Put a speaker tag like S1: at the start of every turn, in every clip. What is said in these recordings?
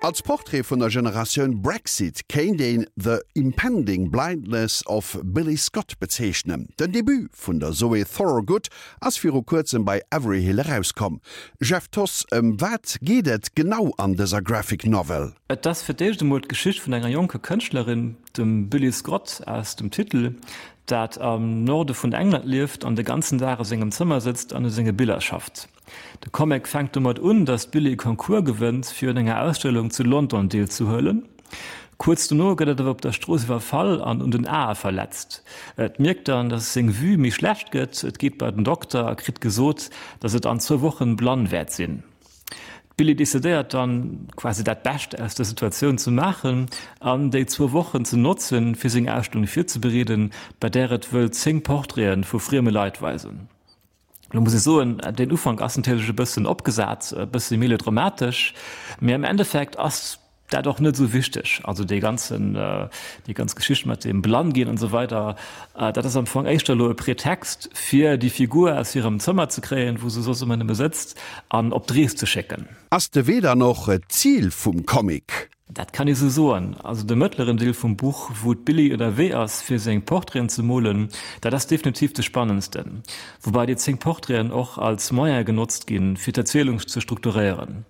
S1: Als Portrait vun der Generatioun Brexit kéint een The Impending Blindness of Billy Scott bezeechnen. Den Debut vun der Zoe Thorogood ass viru kuerzem bei Averyhill erauskomm. Jeff Thoss, ëm wat geet et genau an dëser Graphic Novel?
S2: Et ass fir d'éischt emol d'Geschicht vun enger jonker Kënschtlerin, dem Billy Scott aus dem Titel, dat am Norde vun England lieft an de ganzen Dag a sengem Zëmmer sëtzt an u senge Biller schafft. De Comic fänkt domat un, datt d'Billie e Concours gewënnt, fir un enger Ausstellung zu London deelzehuelen. Kuerz dono gëtt et awer op der Strooss iwwerfall an un den Ae verletzt. Et mierkt dann, datt seng Vue méi schlecht gëtt. Et geet bei den Dokter a kritt gesot, datt et an zwou Wochen blann wäert sinn. D'Billie decidéiert dann, quasi dat Bescht aus der Situatioun ze maachen an déi zwou Wochen ze notzen, fir seng Ausstellung virzebereeden, bei där et wëll 10 Portraite vu frieme Leit weisen. Lo muss ech soen, den Ufank ass natierlech e bëssen opgesat, e bësse melodramatesch, mee am Endeffekt ass dat och net esou wichteg. Also dee ganzen, déi ganz Geschicht mat dem Blannginn an esou weider, dat ass am Fong éischter elo e Pretext, fir déi Figur aus hirem Zëmmer ze kréien, wou se soss ëmmer nëmme sëtzt, an op d'Rees ze schécken.
S1: Ass de Wee dann och d'Zil vum Comic?
S2: Dat kann ee sou soen. Also de mëttleren Deel vum Buch, wou d'Billie ënnerwee ass fir seng Portraiten ze molen, dat ass definitiv de spannendsten. Woubei déi 10 Portraiten och als Moyen genotzt ginn, fir d'Erzielung ze strukturéieren.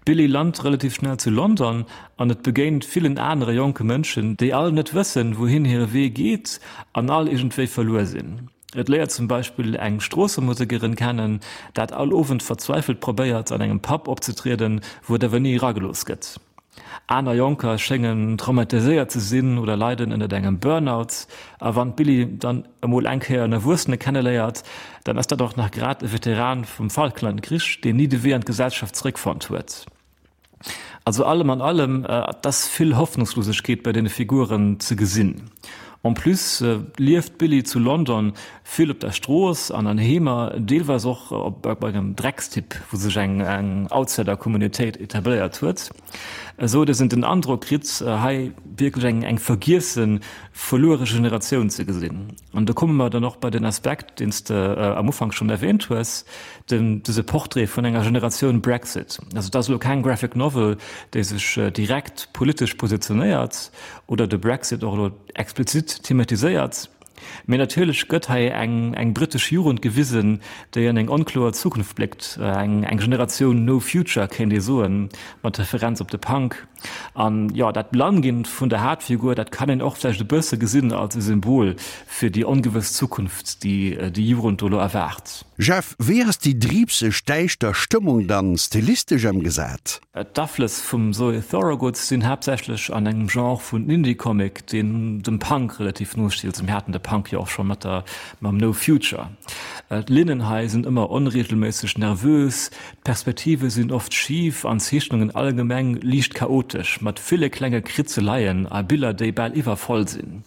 S2: D'Billie lant relativ schnell zu London an et begéint villen anere jonke Mënschen, déi all net wëssen, wouhin hire Wee geet an all iergendwéi verluer sinn. Et léiert zum Beispill eng Stroossemusekerin kennen, dat all Owend verzweifelt probéiert an engem Pub opzetrieden, wou et awer ni eragelooss gëtt. Aner Jonker schéngen traumatiséiert ze sinn oder leiden ënnert engem Burnout. A wann d'Billie dann emol eng Kéier en Erwuessene kenneléiert, dann ass dat och nach grad e Veteran vum Falklandkrich, deen ni de Wee an d'Gesellschaft zeréckfonnt huet. Also allem an allem, et ass vill Hoffnungslosegkeet bei deene Figuren ze gesinn. En plus lieft d'Billie zu London vill op der Strooss an an Heemer, deelweis och op engem Dreckstipp, wou sech eng Outsider-Communautéit etabléiert huet, esou datt een den Androck kritt, hei wierklech eng vergiessen, verluere Generatioun ze gesinn. An do komme mer dann och bei den Aspekt, deen s de am Ufank schonn erwähnt hues, den, dëse Portrait vun enger Generatioun Brexit. Also et ass elo keng Graphic Novel, déi sech direkt politesch positionéiert oder de Brexit och elo explizit thematiséiert, mee natierlech gëtt hei eng, eng brittesch Jugend gewisen, déi an eng onkloer Zukunft bléckt, eng, eng Generatioun No Future kéint ee soen, mat Referenz op de Punk. An jo, dat Blannginn vun der Haaptfigur, dat kann een och vläicht e bësse gesinn als e Symbol fir déi ongewëss Zukunft, déi déi Jugend do elo erwaart.
S1: Jeff, wéi ass déi driibseg däischter Stëmmung dann stilistesch emgesat?
S2: D'Aflëss vum Zoe Thorogood sinn haaptsächlech an engem Genre vun Indie-Comic, deen dem Punk relativ no steet. Also mir haten de Punk jo och scho mat der, mam No Future. D'Linnen hei sinn ëmmer onreegelméisseg, nervös, D'Perspektive sinn oft schif an d'Zeechnungen allgemeng liicht chaotesch, mat ville klenge Kritzeleien a Biller, déi bal iwwervoll sinn.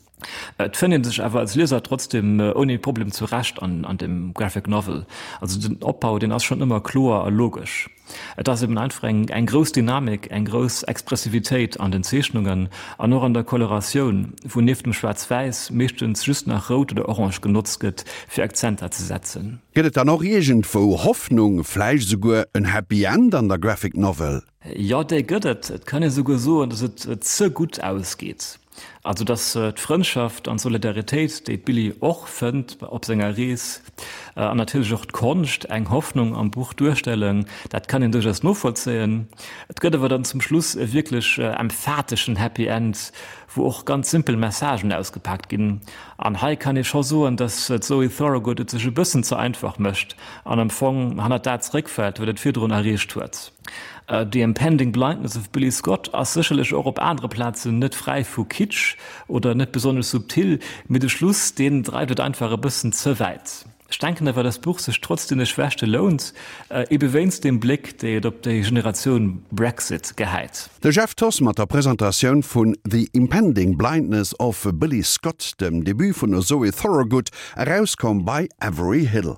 S2: Et fënnt ee sech awer als Lieser trotzdem ouni Problem zurecht an dem Graphic Novel. Also den Opbau, deen ass schonn ëmmer kloer a logesch. Et ass eben einfach eng grouss Dynamik, eng grouss Expressivitéit an den Zeechnungen an och an der Coloratioun, wou nieft dem Schwaarz-Wäiss meeschtens just nach Rout oder Orange genotzt gëtt, fir Akzenter ze setzen.
S1: Gëtt et dann och iergendwou Hoffnung, vläicht esouguer en Happy End an der Graphic Novel?
S2: Jo, déi gëtt et. Et kann ee souguer soen, datt et ze gutt ausgeet. Also datt d'Frëndschaft an d'Solidaritéit, déi d'Billie och fënnt op senger Rees, an natierlech och d'Konscht eng Hoffnung am Buch duerstellen, dat kann een duerchaus novollzéien. Et gëtt awer dann zum Schluss e wierklech emphateschen Happy End, wou och ganz simpel Messagen ausgepaakt ginn. An hei kann ee scho soen, dass d'Zoe Thorogood et sech e bëssen ze einfach mécht an am Fong hannert dat zeréckfält, wat et virdrun erreecht huet. The Impending Blindness of Billy Scott ass sécherlech och op anere Plazen net fräi vu Kitsch oder net besonnesch subtil, mee de Schluss, deen dreift et einfach e bëssen ze wäit. Ech denken awer, dass d'Buch sech trotz deene Schwächte lount, ebe wéinst deem Bléck, déi et op déi Generatioun Brexit gehäit.
S1: De Jeff Thoss mat der Presentatioun vun The Impending Blindness of Billy Scott, dem Debut vun der Zoe Thorogood, erauskomm bei Avery Hill.